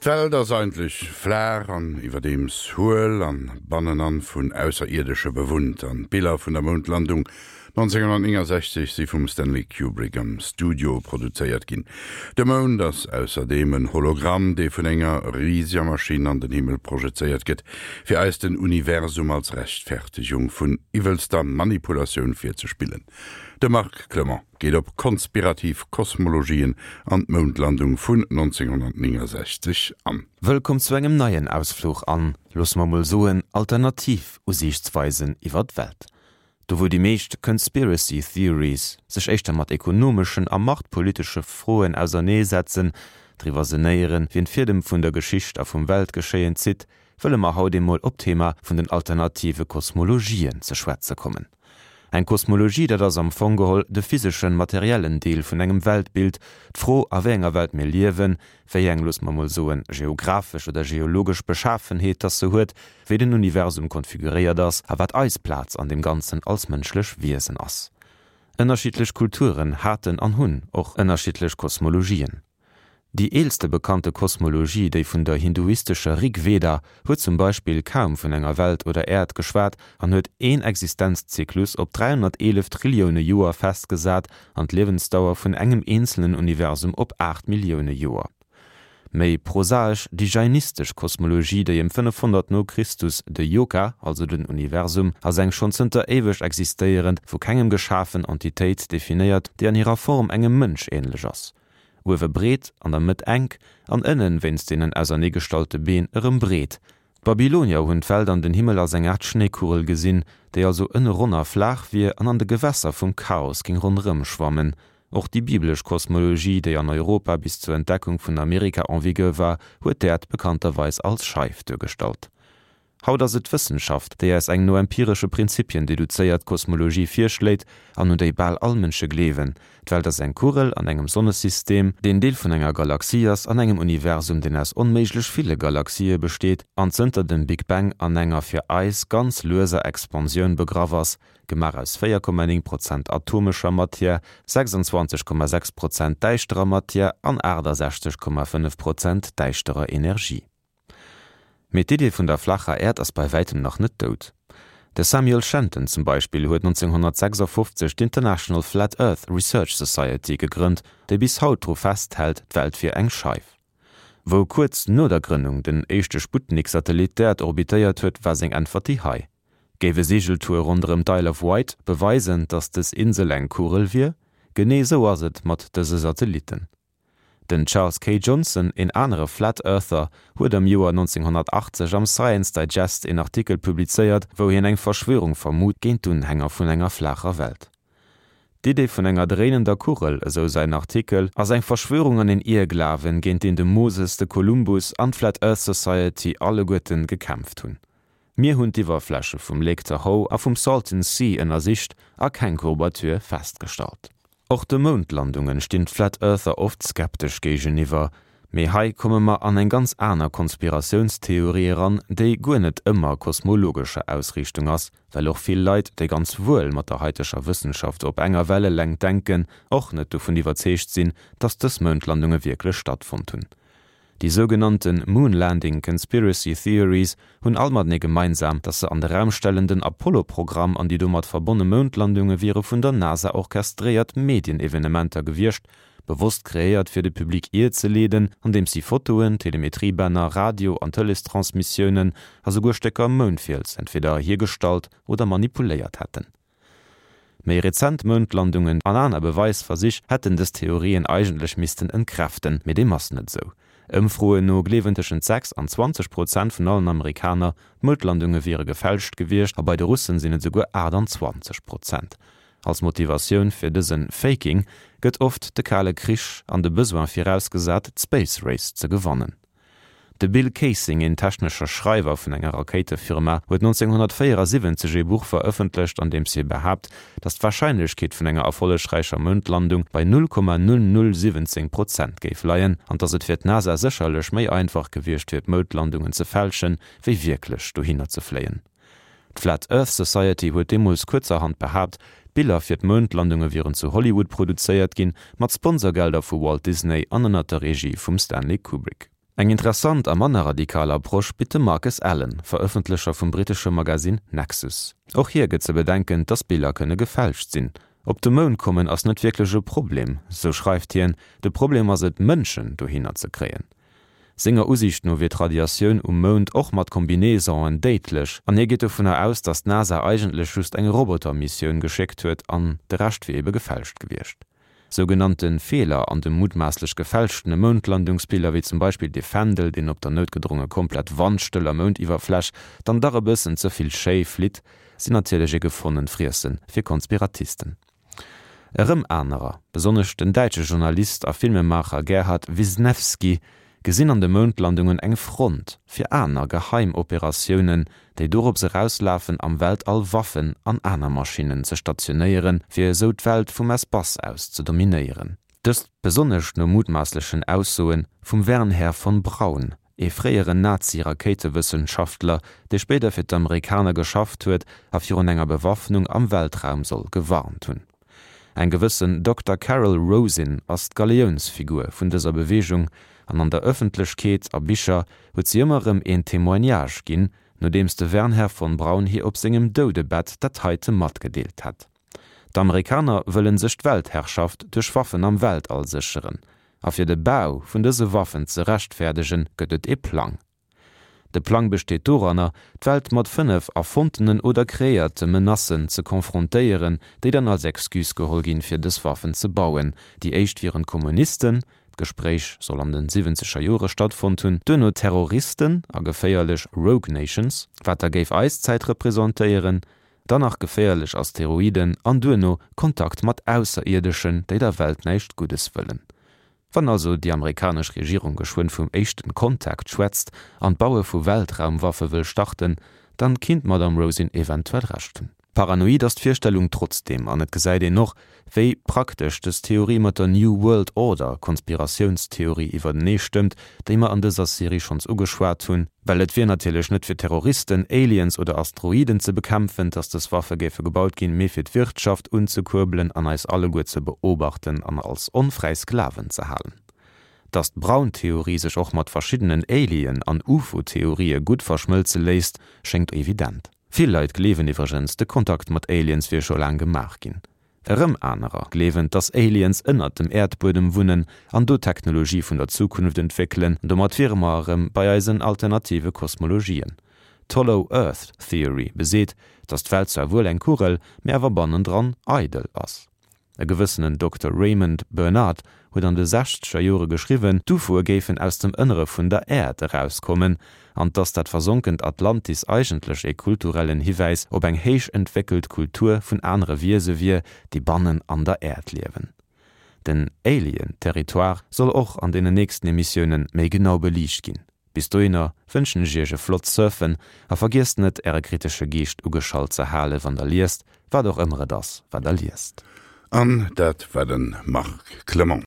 D'Welt ass eigentlech flaach an iwwerdeems huel an bannenan vun Ausserierdesche bewunnt. An d'Biller vun der Moundlandung 1969 si vum Stanley Kubrick am Studio produzéiert ginn. De Mound ass ausserdeem en Hologramm, dee vun enger riseger Maschinn an den Himmel projezéiert gëtt, fir eis den Universum als Rechtfertegung vun iwwelster Manipulatioun virzespillen. De Marc Clement. Geet op konspirativ Kosmologien an d'Moundlandung vun 1969 an. Wëllkomm zu engem neien Ausfluch an, loosse mer mol soen, alternativ Usiichtsweisen iwwer d'Welt. Do wou déi meescht Conspiracy Theories sech éischter mat ekonomeschen a machtpolitesche Froen auserneesetzen, driwwer senéieren, wien d'Fiedem vun der Geschicht a vum Weltgeschéien zitt, wëlle mer haut emol op d'Thema vun den alternative Kosmologien ze schwätze kommen. Eng Kosmologie, dat ass am Fong geholl de physeschen, materiellen Deel vun engem Weltbild, d'Fro a wéi enger Welt mir liewen, wéi eng, loosse mer mol soen, geographesch oder geologesch Beschafenheet dass se huet, wéi den Universum konfiguréiert ass a wat eis Plaz an deem Ganzen als mënschlech Wiesen ass. Ënnerschiddlech Kulturen haten an hunn och ënnerschiddlech Kosmologien. Déi eelste bekannte Kosmologie, déi vun der hinduistescher Rig Veda, huet zum Beispill kaum vun enger Welt oder Äerd geschwat an huet een Existenzzyklus op 311 Trillioune Joer festgesat an d'Liewensdauer vun engem eenzelen Universum op 8 Millioune Joer. Méi prosaesch déi jainistesch Kosmologie, déi ëm 500 no Christus de Yoka, also den Universum, als eng schonn zënter éiweg existéierend, vu kengem geschafen Entitéit definéiert, déi an hirer Form engem Mënsch änlech ass. Uewe breet, an der Mëtt enk, an ënnen, wéinst deenen auserneegestallte Been, erëm breet. D'Babylonier hunn d'Welt an den Himmel als eng Aart Schnéikugel gesinn, déi also ënne ronn a flaach wier an an de Gewässer vum Chaos géing ronderëm schwammen. Och déi biblesch Kosmologie, déi an Europa bis zur Entdeckung vun Amerika en vigueur war, huet d'Äerd bekannterweis als Scheif duergestallt. Haut ass et d'Wëssenschaft, déi eis eng no empiresche Prinzipien deduzéiert Kosmologie virschléit an un déi bal all Mënsche gleewen, D'Welt ass eng Kugel an engem Sonnesystem, deen Deel vun enger Galaxie ass, an engem Universum, deen aus onméiglech ville Galaxië besteet an zënter dem Big Bang an enger fir eis ganz lueser Expansioun begraff ass, gemaach aus 4,9 Prozent atomescher Matière, 26,6 Prozent däischterer Matière an 68,5 Prozent däischterer Energie. Mee d'Idee vun der flacher Äerd ass bei wäitem nach net dout. De Samuel Shenton zum Beispill huet 1956 d'International Flat Earth Research Society gegrënnt, déi bis haut dru festhält, d'Welt wier eng Scheif. Wou kuerz no der Grënnung den éischte Sputnik-Satellit d'Äerd orbitéiert huet, war seng Äntwert déi hei, Géif e Seegeltour ronderëm d'Isle of Wight beweisen, datt dës Insel eng Kugel wier? Genee esou ass et mat dëse Satellitten. Den Charles K. Johnson, een anere Flat Earther, huet am Joer 1980 am Science Digest een Artikel publizéiert, wou hien eng Verschwörung vermut géint d'Unhänger vun enger flaacher Welt. D'Idee vun enger dréinender Kugel, esou säin Artikel, ass eng Verschwörung an een Ierglawen, géint deen de Moses, de Kolumbus an d'Flat Earth Society alleguerten gekämpft hunn. Mir hunn d'Iwwerfläche vum Lake Tahoe a vum Salton Sea ënnersicht a keng Courbature festgestallt. Och de Moundlandungen stinn d'Flat Earther oft skeptesch géigeniwwer. Mee hei komme mer an eng ganz aner Konspiratiounstheorie eran, déi guer net ëmmer kosmologescher Ausriichtung ass, well och vill Leit, déi ganz wuel mat der haiteger Wëssenschaft op enger Wellelängt denken, och net dovun iwwerzeegt sinn, dass dës Moundlandunge wierklech stattfonnt hunn. Déi sougenannte Moon Landing Conspiracy Theories hunn all matenee gemeinsam, datt se an de Raum stellen, den Apollo-Programm an déi domat verbonne Moundlandunge wiere vun der NASA orchestréiert Medienevenementer gewiescht, bewosst kreéiert fir de Public ierzeleeden, andeems si Fotoen, Telemetriebänner, Radio an Tëleestransmissiounen a souguer Stécker Moundfiels entweder hiergestallt oder manipuléiert hätten. Méi rezent Moundlandungen an aner Beweisversich hätten dës Theorien eigentlech missten entkräften, mee deem ass net esou. Ëmfroen no gleewen tëschent 6 an 20 Prozent vun allen Amerikaner, d'Moundlandunge wiere gefälscht gewiescht a bei de Russen sinn et esouguer 28 Prozent. Als Motivatioun fir dëse Faking gëtt oft de Kale Krich an de Besoin virausgesat, d'Space Race ze gewannen. De Bill Kaysing, een technescher Schreiwer vun enger Rakéitefirma, huet 1974 ee Buch verëffentlecht, an deems hie behaapt, datt d'Warscheinlechkeet vun enger erfollegräicher Moundlandung bei 0,0017 Prozent géif leien an datt et fir d'NASA sécherlech méi einfach gewiescht wier d'Moundlandungen ze fälschen, wéi wierklech dohinner ze fléien. D'Flat Earth Society huet deemools kuerzerhand behaapt, d'Biller fir d'Moundlandunge wieren zu Hollywood produzéiert ginn, mat Sponsorgelder vu Walt Disney an ënner der Regie vum Stanley Kubrick. Eng interessant a manner radikal Approche bitt de Marcus Allen, Verëffentlecher vum brittesche Magasinn Nexus. Och hie gëtt ze bedenken, dass Biller kënne gefälscht sinn. Op de Mound kommen ass net wierklech e Problem, sou schreift hien, de Problem ass et, Mënschen dohinner ze kréien. Senger Usiicht no wier d'Radiatioun um Mound och mat Combinaisonen déidlech an hie geet dovunner aus, datt d'NASA eigentlech just eng Roboter-Missioun geschéckt huet an de Rescht wier ebe gefälscht gewiescht. Sougenannte Feeler an de mutmaasslech gefälschtene Moundlandungsbiller, wéi zum Beispill dee Fändel, deen op der noutgedronge komplett wandstëller Moundiwwerfläch dann dach e bëssen ze vill schéi flitt, sinn natierlech e gefonnent Friesse fir Konspiratisten. Erëm anerer, besonnesch den däitsche Journalist a Filmemaacher Gerhard Wisnewski, gesinn an de Moundlandungen eng Front fir aner geheim Operatiounen, déi dorops erauslafen, am Weltall Waffen an aner Maschinnen ze stationéieren, fir esou d'Welt vum Espace aus ze dominéieren. Dëst besonnesch no mutmaasslechen Aussoe vum Wernher von Braun, ee fréieren Nazi-Rakéitewëssenschaftler, dee spéider fir d'Amerikaner geschafft huet a virun enger Bewaffnung am Weltraum soll gewarnt hunn. Eng gewëssen Dokter Carol Rosin ass d'Galiounsfigur vun dëser Beweegung an an der Ëffentlechkeet a Bicher huet si ëmmer erëm een Témoignage ginn, nodeems de Wernher von Braun hir op sengem Doudebett dat heite matgedeelt hätt. D'Amerikaner wëllen sech d'Weltherrschaft duerch Waffen am Weltall sécheren. A fir de Bau vun dëse Waffen ze rechtfäerdegen, gëtt et ee Plang. De Plang besteet doranner, d'Welt mat 5 erfonntenen oder kreéierte Menacen ze konfrontéieren, déi dann als Excuse geholl ginn, fir dës Waffen ze bauen. Déi éischt wieren d'Kommunisten, d'Gespréich soll an de siwwenzeger Jore stattfonnt hunn, duerno Terroristen a geféierlech Rogue Nations, wat da géif eis Zäit representéieren, Dann nach geféierlech Asteroiden an duerno Kontakt mat Ausserierdeschen, déi der Welt näischt Guddes wëllen. Wann also déi amerikanesch Regierung geschwënn vum éischten Kontakt schwätzt an d'Baue vu Weltraumwaffe wëll starten, dann kinnt d'Madame Rosin eventuell Recht hunn. Paranoid ass d'Virstellung trotzdeem, an et gesäit een och, wéi praktesch dës Theorie mat der New World Order Konspiratiounstheorie iwwertenee stëmmt, déi mer an dëser Serie schonns ugeschwat hunn, well et wier natierlech net fir Terroristen, Aliens oder Asteroiden ze bekämpfen, dass dës Waffe géife gebaut ginn, mee fir d'Wirtschaft unzekuerbelen an eis alleguer ze beobachten an als onfräi Sklaven ze halen. Dass d'Braun-Theorie sech och mat verschiddenen Alien an UFO-Theorië gutt verschmëlze léisst, schéngt evident. Vill Leit gleewen iwwregens, de Kontakt mat Aliens wier scho laang gemaach ginn. Erëm anerer gleewen, dass Aliens ënnert dem Äerdbuedem wunnen an do Technologie vun der Zukunft entwéckelen. Domat wiere mer erëm bei eisen alternative Kosmologien. D'Hollow Earth Theory beseet, dass d'Welt zwar wuel eng Kugel, mee awer bannendran eidel ass. E gewëssenen Dokter Raymond Bernard huet an de sechzeger Jore geschriwwen, d'UFOe géifen aus dem Ënnere vun der Äerd erauskommen an dass dat versonkent Atlantis eigentlech ee kulturellen Hiwäis op eng héich entwéckelt Kultur vun anere Wiese wier, déi bannen an der Äerd liewen. Den Alien-Territoire soll och an deenen nächsten Emissiounen méi genau beliicht ginn. Bis dohinner wënschen ech iech e flott Surfen a vergiesst net äre kritesche Geescht ugeschalt ze hale wann der liest, wat och ëmmer et ass wat der liest. An dat war de Marc Clement.